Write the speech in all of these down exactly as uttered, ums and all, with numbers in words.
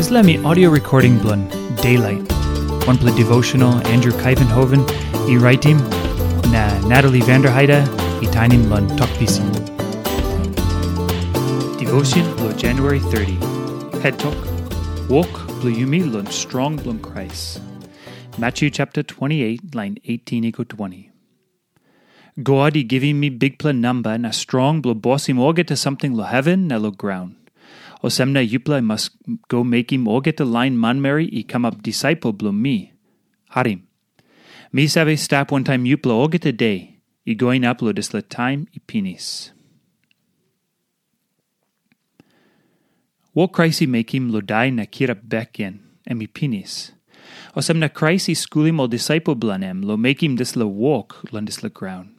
Dispela mi audio recording bilong Daylight, wanpela devotional Andrew Kaivenhoven i raitim, na Natalie Vanderheide i tainim long Tok Pisin. Devotion bilong January thirty. Head Tok, Wok bilong yumi long strong bilong Krais. Matthew chapter twenty-eight, line eighteen i go twenty. God i givim mi bikpela namba na strong bilong bosim olgeta samting long heven na long graun. Olsem na yupela i mas go mekim olgeta lain manmeri i kamap disaipel bilong mi. Harim. Mi save stap wantaim yupela olgeta de, i go inap long dispela taim i pinis. Wok Krais i mekim long dai na kirap bek gen, em i pinis. Olsem na Krais i skulim ol disaipel bilong em long mekim dispela wok long dispela graun.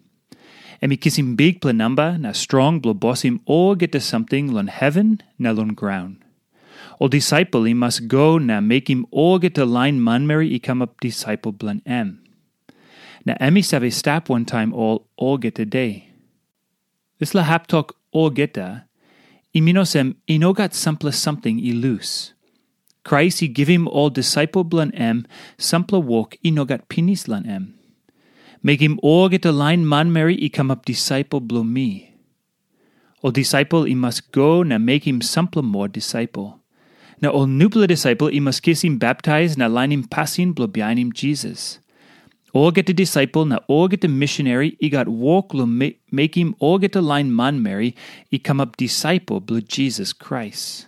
Em i kisim bikpela namba na strong bilong bosim olgeta samting long heven na long graun. Ol disaipel i mas go na mekim olgeta lain manmeri i kamap disaipel bilong em. Na em i save stap wantaim ol olgeta de. Dispela hap tok olgeta, i min olsem i no gat sampela samting i lus. Krais i givim ol disaipel bilong em sampela wok i no gat pinis long em. Mekim olgeta lain manmeri i kamap disaipel bilong mi. Ol disaipel i mas go na mekim sampela moa disaipel. Na ol nupela disaipel i mas kisim baptais na lainim pasin bilong bihainim Jisas. Olgeta disaipel na olgeta missionary i gat wok long me- mekim olgeta lain manmeri i kamap disaipel bilong Jisas Krais.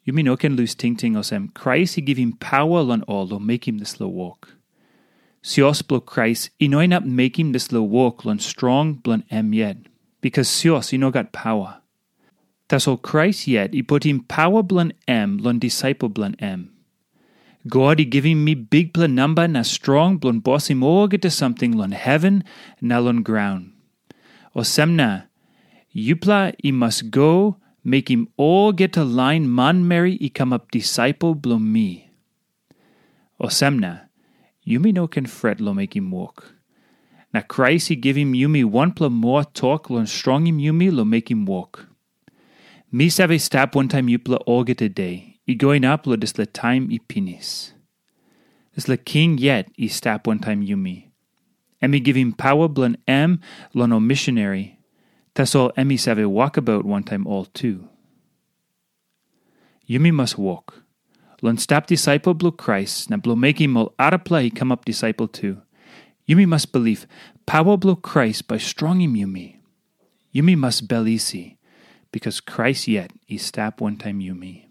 Yumi no ken lus tingting olsem Krais i givim paua long ol long mekim dispela wok. Sios bilong Krais i no inap mekim dispela wok long strong bilong em yet, bikas sios i no gat paua. Tasol Krais yet i putim paua bilong em long disaipel bilong em. God i givim mi bikpela namba na strong bilong bosim olgeta samting long heven na long graun. Olsem na, yupela i mas go mekim olgeta lain manmeri i kamap disaipel bilong mi. Olsem na, yumi no ken fret long mekim wok. Na Krais i givim yumi wanpela moa tok long strongim yumi long mekim wok. Mi save stap wantaim yupela olgeta de, i go inap long dispela taim i pinis. Dispela king yet i stap wantaim yumi. Em i givim paua bilong em long ol missionary, tasol em i save wokabaut wantaim ol tu. Yumi mas wok. Long stap disaipel bilong Krais na bilong mekim ol arapela i kamap disaipel tu, yumi mas bilip paua bilong Krais bai strongim yumi. Yumi mas bel isi, bikas Krais yet i stap wantaim yumi.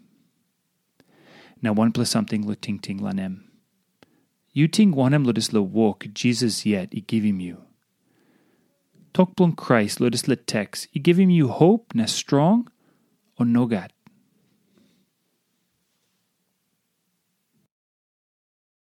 Na wanpela samting long tingting long em. Yu ting wanem long dispela wok Jisas yet i givim yu? Tok bilong Krais long dispela teks i givim yu hop na strong, o nogat?